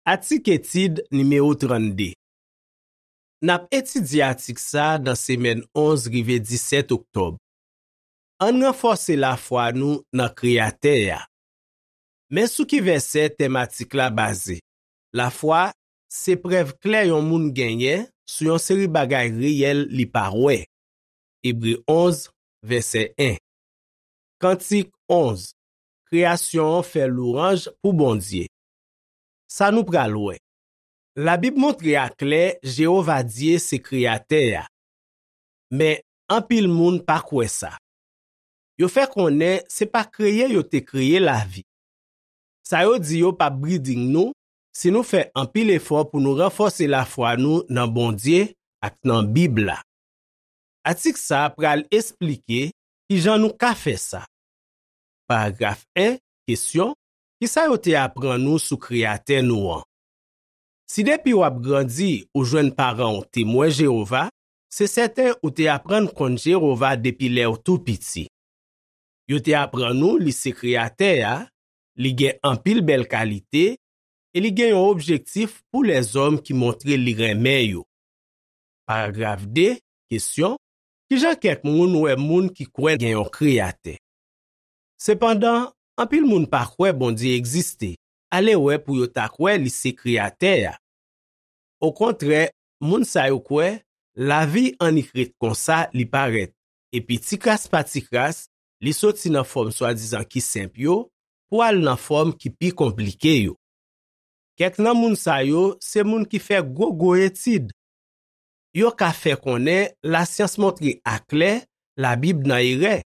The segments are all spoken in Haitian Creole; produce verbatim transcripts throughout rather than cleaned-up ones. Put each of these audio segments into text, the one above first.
Atik etid nimewo trannde. N ap etidye atik sa a nan semèn onz rive disèt oktòb. Ann ranfòse lafwa nou nan Kreyatè a. Men sou ki vèsè tèm atik la baze. Lafwa se prèv klè yon moun genyen sou yon seri bagay reyèl li pa wè. Ebre onz, vèsè en. Kantik onz. Kreyasyon an fè lwanj pou Bondye. Sa nou pral wè. Labib montre aklè Jewova Dye se Kreyatè a. Men, anpil moun pa kwè sa. Yo fè konnen se pa kreye yo te kreye lavi. Sa yo di yo p ap briding nou si nou fè anpil efò pou nou ranfòse lafwa nou nan Bondye ak nan Bib la. Atik sa a pral esplike ki jan nou ka fè sa. Paragraf en, kesyon, ki sa yo te aprann ou sou Kreyatè nou an? Si depi w ap grandi ou jwenn paran w Temwen Jewova, se sèten ou te aprann konn Jewova depi lè w tou piti. Yo te aprann ou li se Kreyatè a, li gen anpil bèl kalite, e li gen yon objektif pou lèzòm ki montre li renmen yo. Paragraf de, kesyon, ki jan kèk moun wè moun ki kwè gen yon Kreyatè? Sepandan, anpil moun pa kwè Bondye egziste, alewè pou yo ta kwè li se Kreyatè a. Okontrè, moun sa yo kwè lavi annik ret konsa li parèt, epi tikras pa tikras, li soti nan fòm swadizan ki senp yo pou al nan fòm ki pi konplike yo. Kèk nan moun sa yo se moun ki fè gwo gwo etid. Yo ka fè konnen lasyans montre aklè Labib nan erè,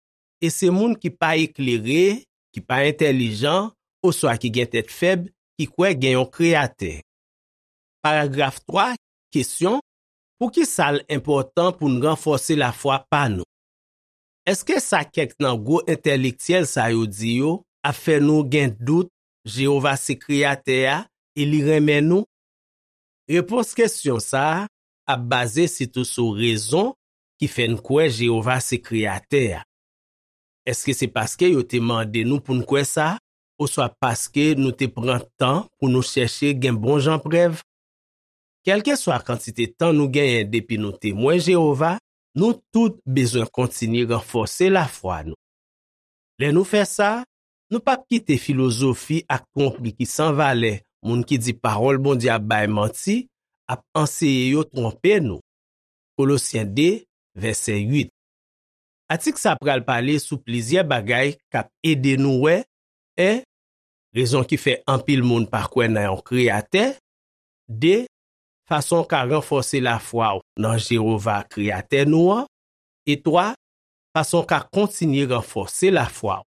e se moun ki pa eklere, ki pa entèlijan, oswa ki gen tèt fèb, ki kwè gen yon Kreyatè. Paragraf twa, kesyon, poukisa l enpòtan pou n ranfòse lafwa pa nou? Èske sa kèk nan gwo entèlektyèl sa yo di yo ap fè nou gen dout Jewova se Kreyatè a e li renmen nou? Repons kesyon sa a ap baze sitou sou rezon ki fè n kwè Jewova se Kreyatè a. Èske se paske yo te mande nou pou n kwè sa, oswa paske nou te pran tan pou nou chèche gen bon jan prèv? Kèlkeswa kantite tan nou genyen depi nou Temwen Jewova, nou tout bezwen kontinye ranfòse lafwa nou. Lè nou fè sa, nou p ap kite filozofi ak twonpri ki san valè moun ki di pawòl Bondye ap bay manti ap anseye yo twonpe nou. Kolosyen de, vèsè uit. Atik sa pral pale sou plizyè bagay k ap ede nou wè, en, rezon ki fè anpil moun pa kwè nan yon Kreyatè, de, fason w ka ranfòse lafwa w nan Jewova, Kreyatè nou an, e twa, fason w ka kontinye ranfòse lafwa w.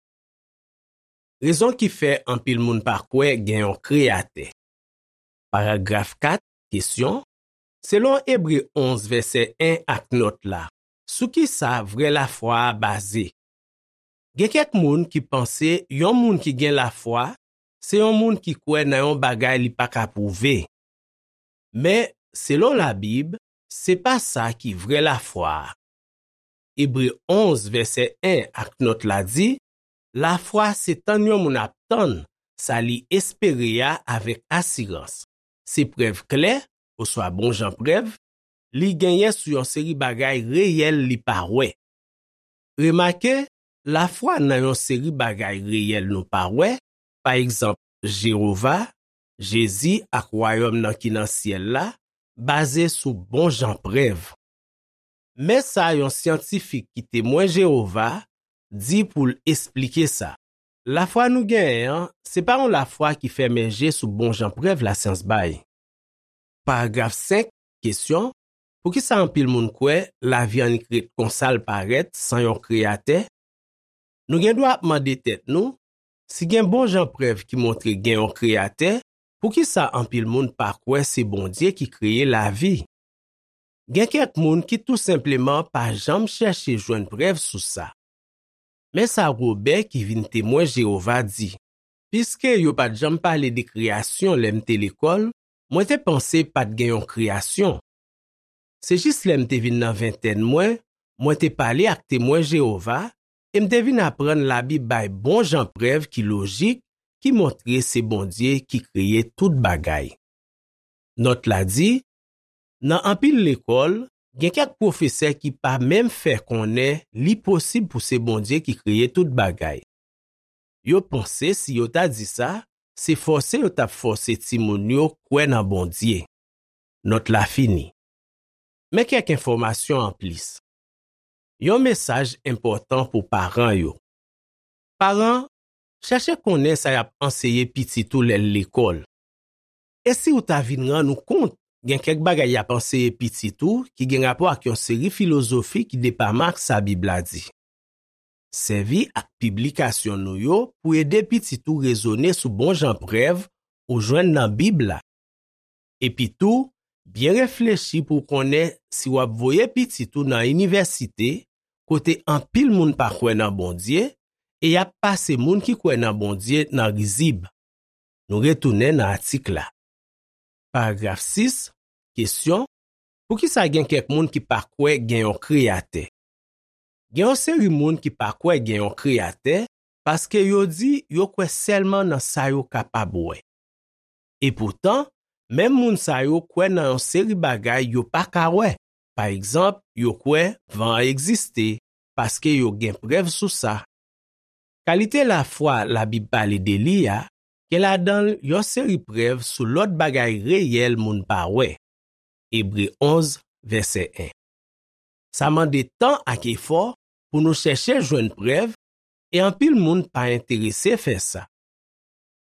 Rezon ki fè anpil moun pa kwè gen yon Kreyatè. Paragraf kat, kesyon, selon Ebre onz, vèsè en ak nòt la, sou ki sa vrè lafwa a baze? Gen kèk moun ki panse yon moun ki gen lafwa se yon moun ki kwè nan yon bagay li pa ka pwouve. Men, selon Labib, se pa sa ki vrè lafwa a. Ebre onz, vèsè en ak nòt la di, lafwa se tann yon moun ap tann sa li espere a avèk asirans. Se prèv klè, oswa bon jan prèv, li genyen sou yon seri bagay reyèl li pa wè. Remake, lafwa nan yon seri bagay reyèl nou pa wè, pa egzanp, Jewova, Jezi ak Wayòm nan ki nan syèl la, baze sou bon jan prèv. Men sa yon syantifik ki Temwen Jewova di pou l esplike sa. Lafwa nou genyen an, se pa yon lafwa ki fèmen je sou bon jan prèv lasyans bay. Paragraf senk, kesyon, poukisa anpil moun kwè lavi annik ret konsa l parèt san yon Kreyatè? Nou gen dwa ap mande tèt nou, si gen bon jan prèv ki montre gen yon Kreyatè, poukisa anpil moun pa kwè se Bondye ki kreye lavi? Gen kèk moun ki tou senpleman pa janm chèche jwenn prèv sou sa. Men sa Wobè ki vin Temwen Jewova di, piske yo pa t janm pale de kreyasyon lè m te lekòl, mwen te panse pa t gen yon kreyasyon. Se jis lè m te vin nan ventèn mwen, mwen te pale ak Temwen Jewova e m te vin aprann Labib bay bon jan prèv ki lojik ki montre se Bondye ki kreye tout bagay. Nòt la di, nan anpil lekòl, gen kèk pwofesè ki pa menm fè konnen li posib pou se Bondye ki kreye tout bagay. Yo panse si yo ta di sa, se fòse yo t ap fòse timoun yo kwè nan Bondye. Nòt la fini. Men kèk enfòmasyon anplis. Yon mesaj enpòtan pou paran yo. Paran, chèche konnen sa y ap anseye pitit ou lè l lekòl. E si w ta vin rann ou kont, gen kèk bagay y ap anseye pitit ou ki gen rapò ak yon seri filozofi ki depaman ak sa Bib la di? Sèvi ak piblikasyon nou yo pou ede pitit ou rezone sou bon jan prèv ou jwenn nan Bib la. Epitou, byen reflechi pou w konnen si w ap voye pitit ou nan inivèsite kote anpil moun pa kwè nan Bondye e y ap pase moun ki kwè nan Bondye nan rizib. Nou retounen nan atik la. Paragraf sis, kesyon, poukisa gen kèk moun ki pa kwè gen yon Kreyatè? Gen yon seri moun ki pa kwè gen yon Kreyatè paske yo di yo kwè sèlman nan sa yo kapab wè. Epoutan, menm moun sa yo kwè nan yon seri bagay yo pa ka wè. Pa egzanp, yo kwè van an egziste paske yo gen prèv sou sa. Kalite lafwa Labib pale de li a gen ladan l yon seri prèv sou lòt bagay reyèl moun pa wè. Ebre onz, vèsè en. Sa mande tan ak efò pou nou chèche jwenn prèv, e anpil moun pa enterese fè sa.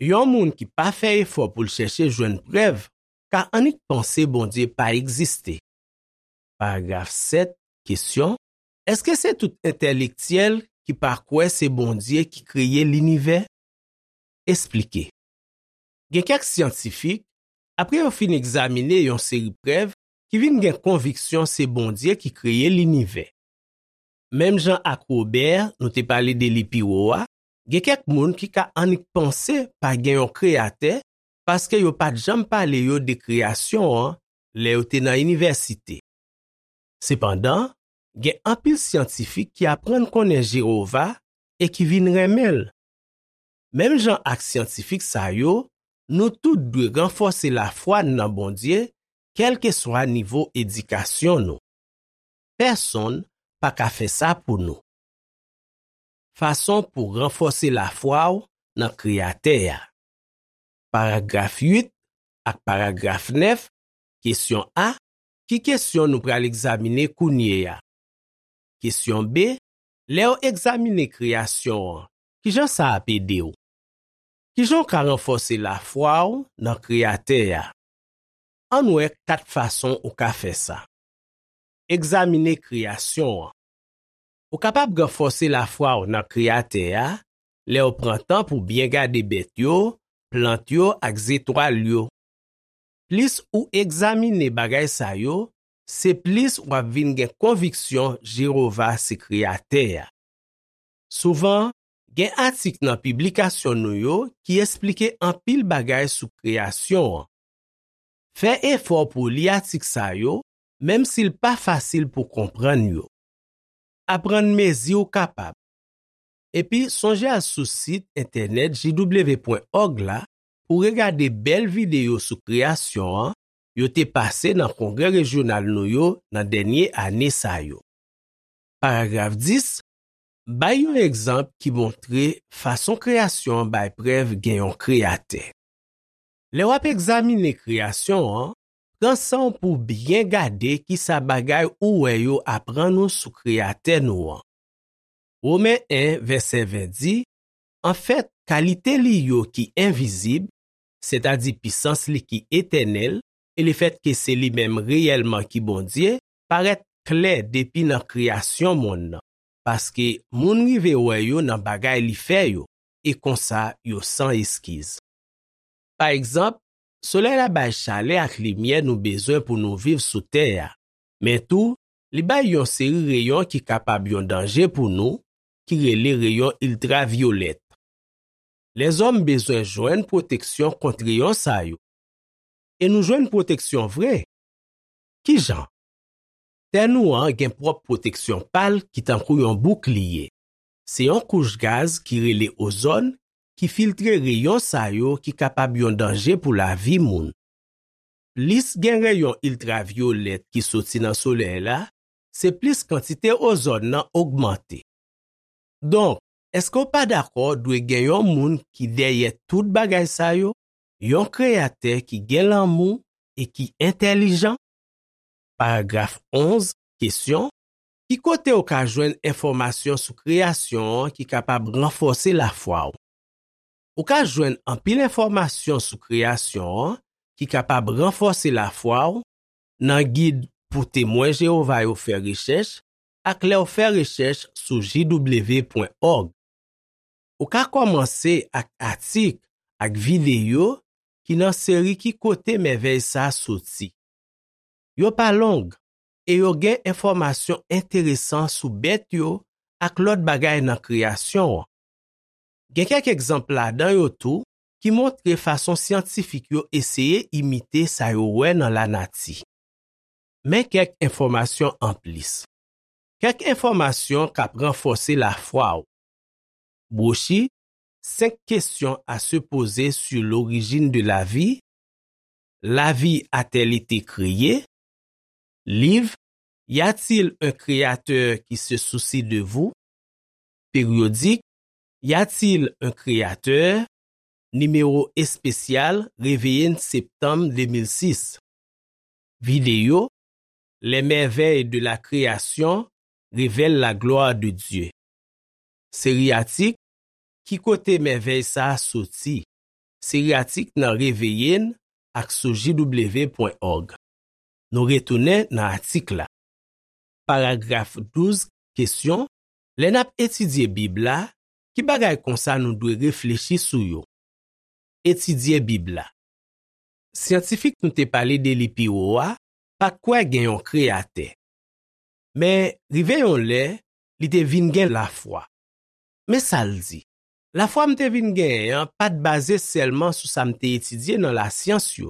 Yon moun ki pa fè efò pou l chèche jwenn prèv ka annik panse Bondye pa egziste. Paragraf sèt, kesyon, èske se tout entèlektyèl ki pa kwè se Bondye ki kreye linivè? Esplike. Gen kèk syantifik, apre yo fin egzamine yon seri prèv, ki vin gen konviksyon se Bondye ki kreye linivè. Menm jan ak Wobè nou te pale de li pi wo a, gen kèk moun ki ka annik panse pa gen yon Kreyatè paske yo pa t janm pale yo de kreyasyon an lè yo te nan inivèsite. Sepandan, gen anpil syantifik ki aprann konnen Jewova e ki vin renmen l. Menm jan ak syantifik sa yo, nou tout dwe ranfòse lafwa n nan Bondye, kèlkeswa nivo edikasyon nou. Pèsonn pa ka fè sa pou nou. Fason pou ranfòse lafwa w nan Kreyatè a. Paragraf uit ak paragraf nèf, kesyon A, ki kesyon nou pral egzamine kounye a? Kesyon B, lè w egzamine kreyasyon an, ki jan sa ap ede w? Ki jan w ka ranfòse lafwa w nan Kreyatè a? Ann wè kat fason ou ka fè sa. Egzamine kreyasyon an. Ou kapab ranfòse lafwa w nan Kreyatè a lè w pran tan pou byen gade bèt yo, plant yo ak zetwal yo. Plis ou egzamine bagay sa yo, se plis w ap vin gen konviksyon Jewova se Kreyatè a. Souvan, gen atik nan piblikasyon nou yo ki esplike anpil bagay sou kreyasyon an. Fè efò pou w li atik sa yo, menm si l pa fasil pou konprann yo. Aprann mezi w kapab. Epi sonje al sou sit entènèt J W pwen org la pou w regade bèl videyo sou kreyasyon an yo te pase nan kongrè rejyonal nou yo nan dènye ane sa yo. Paragraf dis, bay yon egzanp ki montre fason kreyasyon an bay prèv gen yon Kreyatè. Lè w ap egzamine kreyasyon an, pran san w pou w byen gade kisa bagay ou wè yo aprann ou sou Kreyatè nou an. Women en, vèsè ven di, anfèt, kalite li yo ki envizib, sètadi pisans li ki etènèl, e lefètke se li menm reyèlman ki Bondye, parèt klè depi nan kreyasyon monn nan, paske moun rive wè yo nan bagay li fè yo, e konsa yo san eskiz. Pa egzanp, solèy la bay chalè ak limyè nou bezwen pou nou viv sou tè a, men tou, li bay yon seri reyon ki kapab yon danje pou nou, ki rele reyon iltravyolèt. Lèzòm bezwen jwenn pwoteksyon kont reyon sa yo. E nou jwenn pwoteksyon vre. Ki jan? Tè nou an gen pwòp pwoteksyon pa l ki tankou yon boukliye. Se yon kouch gaz ki rele ozòn ki filtre reyon sa yo ki kapab yon danje pou lavi moun. plis gen reyon iltravyolèt ki soti nan solèy la, se plis kantite ozòn nan ogmante. Donk, èske w pa dakò dwe gen yon moun ki dèyè tout bagay sa yo, yon Kreyatè ki gen lanmou e ki entèlijan? Paragraf onz, kesyon, ki kote w ka jwenn enfòmasyon sou kreyasyon an ki kapab ranfòse lafwa w? Ou ka jwenn anpil enfòmasyon sou kreyasyon an ki kapab ranfòse lafwa w nan gid pou Temwen Jewova yo fè rechèch ak lè w fè rechèch sou J W pwen òg. Ou ka kòmanse ak atik ak videyo ki nan seri Ki kote mèvèy sa a soti? Yo pa long e yo gen enfòmasyon enteresan sou bèt yo ak lòt bagay nan kreyasyon an. Gen kèk egzanp ladan yo tou ki montre fason syantifik yo eseye imite sa yo wè nan lanati. Men kèk enfòmasyon anplis. Kèk enfòmasyon k ap ranfòse lafwa w. Bwochi Cinq questions à se poser sur l'origine de la vie, La vie a-t-elle été créée? Liv Y a-t-il un créateur qui se soucie de vous? Périodik Y a-t-il un créateur? Nimewo espesyal Reveille septanm de mil sis. Videyo Les merveilles de la création révèlent la gloire de Dieu. Seri atik Ki kote mèvèy sa a soti? Seri atik nan Reveille ak sou J W pwen òg. Nou retounen nan atik la. Paragraf douz, kesyon, Lè n ap etidye Bib la, ki bagay konsa nou dwe reflechi sou yo? Etidye Bib la. Syantifik nou te pale de li pi wo a pa t kwè gen yon Kreyatè. Men, rive yon lè, li te vin gen lafwa. Men sa l di, Lafwa m te vin genyen an pa t baze sèlman sou sa m te etidye nan lasyans yo.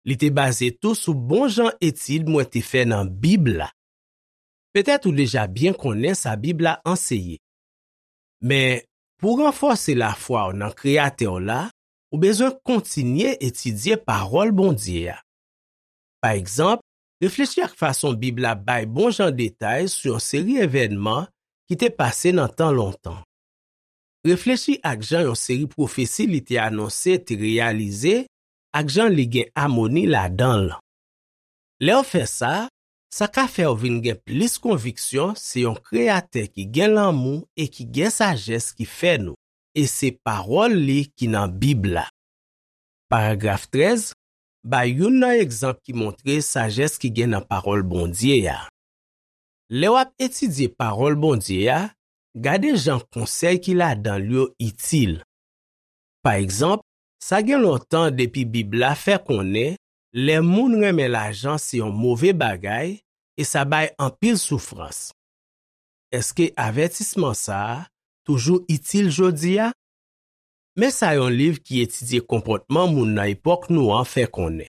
Li te baze tou sou bon jan etid mwen te fè nan Bib la. Petèt ou deja byen konnen sa Bib la anseye. Men, pou w ranfòse lafwa w nan Kreyatè w la, ou bezwen kontinye etidye Pawòl Bondye a. Pa egzanp, reflechi ak fason Bib la bay bon jan detay sou yon seri evènman ki te pase nan tan lontan. Reflechi ak jan yon seri pwofesi li te anonse te reyalize ak jan li gen amoni ladan l. Lè w fè sa, sa ka fè w vin gen plis konviksyon se yon Kreyatè ki gen lanmou e ki gen sajès ki fè nou, e se pawòl li ki nan Bib la. Paragraf trèz, Bay youn nan egzanp ki montre sajès ki gen nan Pawòl Bondye a. Lè w ap etidye Pawòl Bondye a, gade jan konsèy ki ladan l yo itil. Pa egzanp, sa gen lontan depi Bib la fè konnen lè moun renmen lajan se yon move bagay e sa bay anpil soufrans. Èske avètisman sa a toujou itil jodi a? Men sa yon liv ki etidye konpòtman moun nan epòk nou an fè konnen.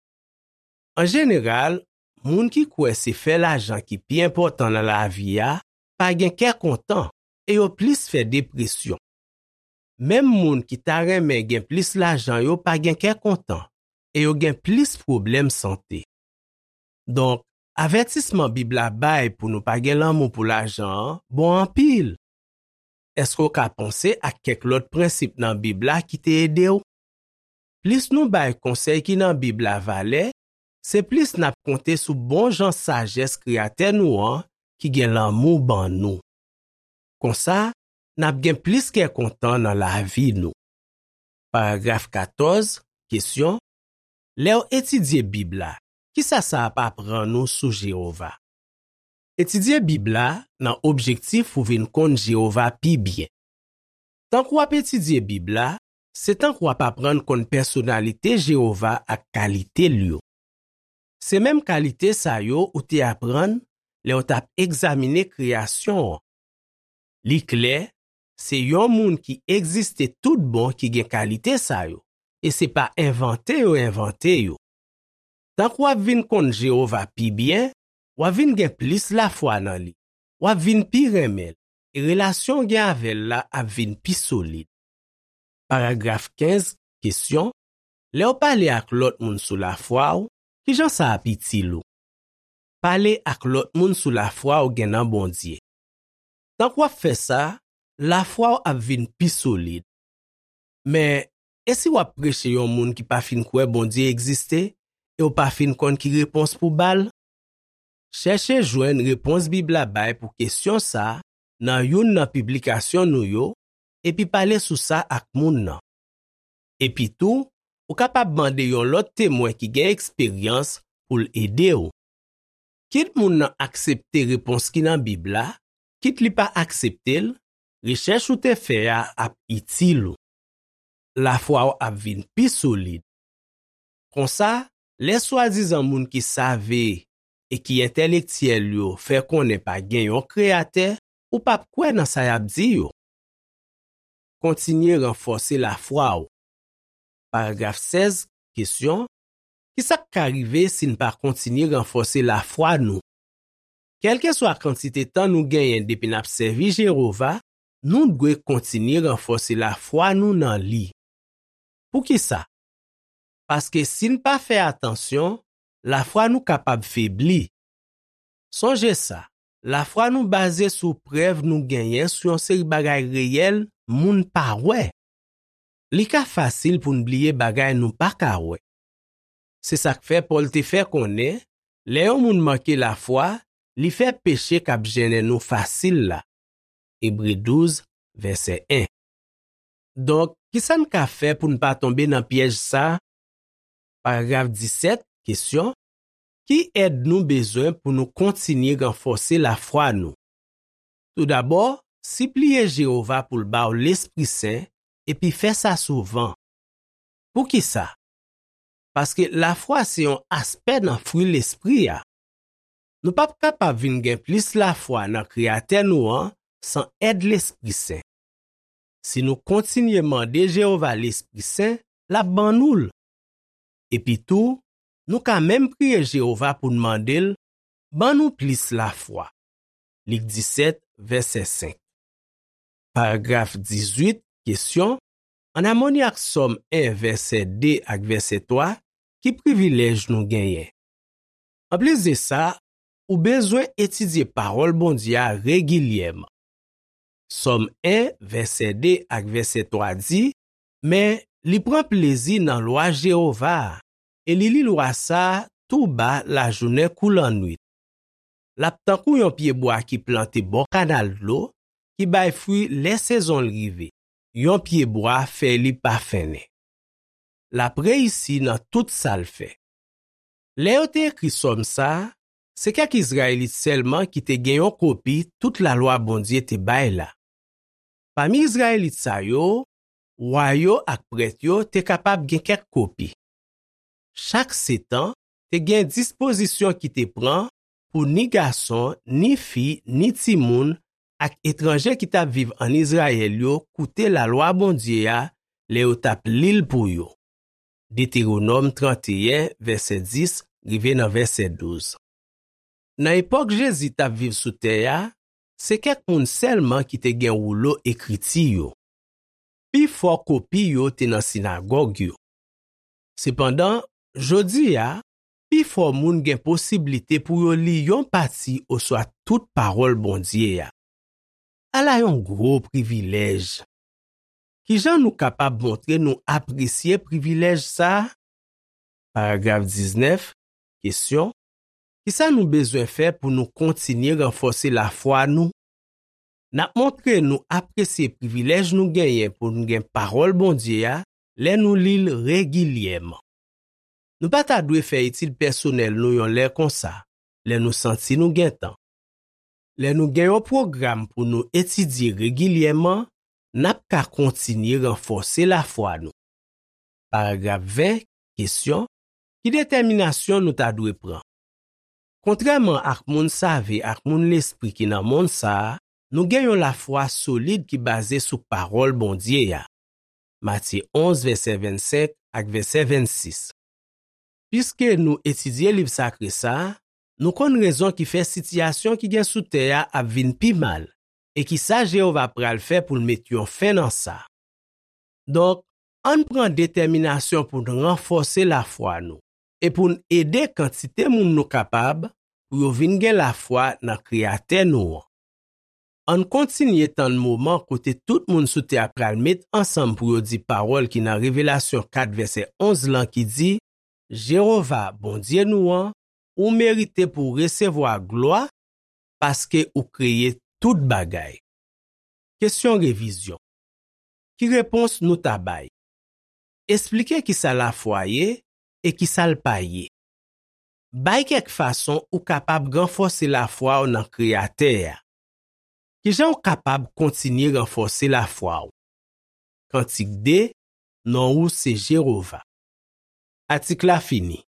An jeneral, moun ki kwè se fè lajan ki pi enpòtan nan lavi a pa gen kè kontan e yo plis fè depresyon. Menm moun ki ta renmen gen plis lajan yo pa gen kè kontan e yo gen plis pwoblèm sante. Donk, avètisman Bib la bay pou nou pa gen lanmou pou lajan an bon anpil. Èske w ka panse ak kèk lòt prensip nan Bib la ki te ede w? Plis nou bay konsèy ki nan Bib la valè, se plis n ap konte sou bon jan sajès Kreyatè nou an ki gen lanmou ban nou. Konsa, n ap gen plis kè kontan nan lavi nou. Paragraf katòz, kesyon, Lè w etidye Bib la, kisa sa ap aprann ou sou Jewova? Etidye Bib la nan objektif pou w vin konn Jewova pi byen. Tank w ap etidye Bib la, se tank w ap aprann konn pèsonalite Jewova ak kalite l yo. Se menm kalite sa yo ou te aprann lè w t ap egzamine kreyasyon an. Li klè, se yon moun ki egziste toutbon ki gen kalite sa yo, e se pa envante yo envante yo. Tank w ap vin konn Jewova pi byen, w ap vin gen plis lafwa nan li, w ap vin pi renmen l, e relasyon w gen avè l la ap vin pi solid. Paragraf kenz, kesyon, Lè w pale ak lòt moun sou lafwa w, Ki jan sa ap itil ou? Pale ak lòt moun sou lafwa w gen nan Bondye. Tank w ap fè sa, lafwa w ap vin pi solid. Men, e si w ap preche yon moun ki pa fin kwè Bondye egziste e w pa fin konn ki repons pou ba l? Chèche jwenn repons Bib la bay pou kesyon sa a nan youn nan piblikasyon nou yo, epi pale sou sa ak moun nan. Epitou, ou kapab mande yon lòt temwen ki gen eksperyans pou l ede w. Kit moun nan aksepte repons ki nan Bib la, kit li pa aksepte l, rechèch ou te fè a ap itil ou. Lafwa w ap vin pi solid. Konsa, lè swadizan moun ki save e ki entèlektyèl yo fè konnen pa gen yon Kreyatè, ou p ap kwè nan sa y ap di yo. Kontinye ranfòse lafwa w. Paragraf sèz, kesyon: ki sa k ka rive si n pa kontinye ranfòse lafwa nou? Kèlkeswa kantite tan nou genyen depi n ap sèvi Jewova, nou dwe kontinye ranfòse lafwa nou nan li. Poukisa? Paske si n pa fè atansyon, lafwa nou kapab febli. Sonje sa, lafwa nou baze sou prèv nou genyen sou yon seri bagay reyèl moun pa wè. Li ka fasil pou n bliye bagay nou pa ka wè. Se sa k fè Pòl te fè konnen, lè yon moun manke lafwa, li fè peche k ap jennen nou fasil la. Ebre douz, vèsè en. Donk, ki sa n ka fè pou n pa tonbe nan pyèj sa a? Paragraf disèt, kesyon: ki èd nou bezwen pou nou kontinye ranfòse lafwa nou? Toudabò, sipliye Jewova pou l ba w Lespri Sen, epi fè sa souvan. Poukisa? Paske lafwa se yon aspè nan fwi Lespri a. Nou p ap kapab vin gen plis lafwa nan Kreyatè nou an san èd Lespri Sen. Si nou kontinye mande Jewova Lespri Sen, l ap ban nou l. Epitou, nou ka menm priye Jewova pou n mande l ban nou plis lafwa. Lik disèt, vèsè senk. Paragraf dizuit, kesyon: ann amoni ak Sòm en, vèsè de ak vèsè twa, ki privilèj nou genyen? Anplis de sa, ou bezwen etidye Pawòl Bondye a regilyèman. Sòm en, vèsè de ak vèsè twa di: men li pran plezi nan lwa Jewova a, e li li lwa sa a tou ba lajounen kou lannwit. L ap tankou yon pyebwa ki plante bò kanal dlo, ki bay fwi lè sezon l rive, yon pyebwa fèy li pa fennen. L ap reyisi nan tout sa l fè. Lè yo te ekri Sòm sa a, se kèk Izrayelit sèlman ki te gen yon kopi tout lalwa Bondye te bay la. Pami Izrayelit sa yo, wa yo ak prèt yo te kapab gen kèk kopi. Chak setan te gen dispozisyon ki te pran pou ni gason, ni fi, ni timoun ak etranje ki t ap viv ann Izrayèl yo koute lalwa Bondye a lè yo t ap li l pou yo. Detewonòm tranteyen, vèsè dis rive nan vèsè douz. Nan epòk Jezi t ap viv sou tè a, se kèk moun sèlman ki te gen woulo ekriti yo. Pifò kopi yo te nan sinagòg yo. Sepandan, jodi a, pifò moun gen posiblite pou yo li yon pati oswa tout Pawòl Bondye a. Ala yon gwo privilèj! Ki jan nou kapab montre nou apresye privilèj sa a? Paragraf diznèf, kesyon: ki sa nou bezwen fè pou nou kontinye ranfòse lafwa nou? N ap montre nou apresye privilèj nou genyen pou n gen Pawòl Bondye a lè nou li l regilyèman. Nou pa ta dwe fè etid pèsonèl nou yon lè konsa, lè nou santi nou gen tan. Lè nou gen yon pwogram pou nou etidye regilyèman, n ap ka kontinye ranfòse lafwa nou. Paragraf ven, kesyon: ki detèminasyon nou ta dwe pran? Kontrèman ak moun save ak moun lespri ki nan monn sa a, nou gen yon lafwa solid ki baze sou Pawòl Bondye a. Matye onz, vèsè vennsenk ak vèsè vennsis. Piske nou etidye liv sakre sa a, nou konn rezon ki fè sitiyasyon ki gen sou tè a ap vin pi mal e ki sa Jewova pral fè pou l met yon fen nan sa. Donk, ann pran detèminasyon pou n ranfòse lafwa nou. e pou n ede kantite moun nou kapab pou yo vin gen lafwa nan Kreyatè nou an. Ann kontinye tann moman kote tout moun sou tè a pral met ansanm pou yo di pawòl ki nan Revelasyon kat vèsè onz lan ki di, Jewova, Bondye nou an, ou merite pou w resevwa glwa, paske ou kreye tout bagay. Kesyon revizyon. Ki repons nou ta bay? Esplike ki sa lafwa ye e ki sa l pa ye. Bay kèk fason ou kapab ranfòse lafwa w nan Kreyatè a. Ki jan w kapab kontinye ranfòse lafwa w? Kantik de, non ou se Jewova. Atik la fini.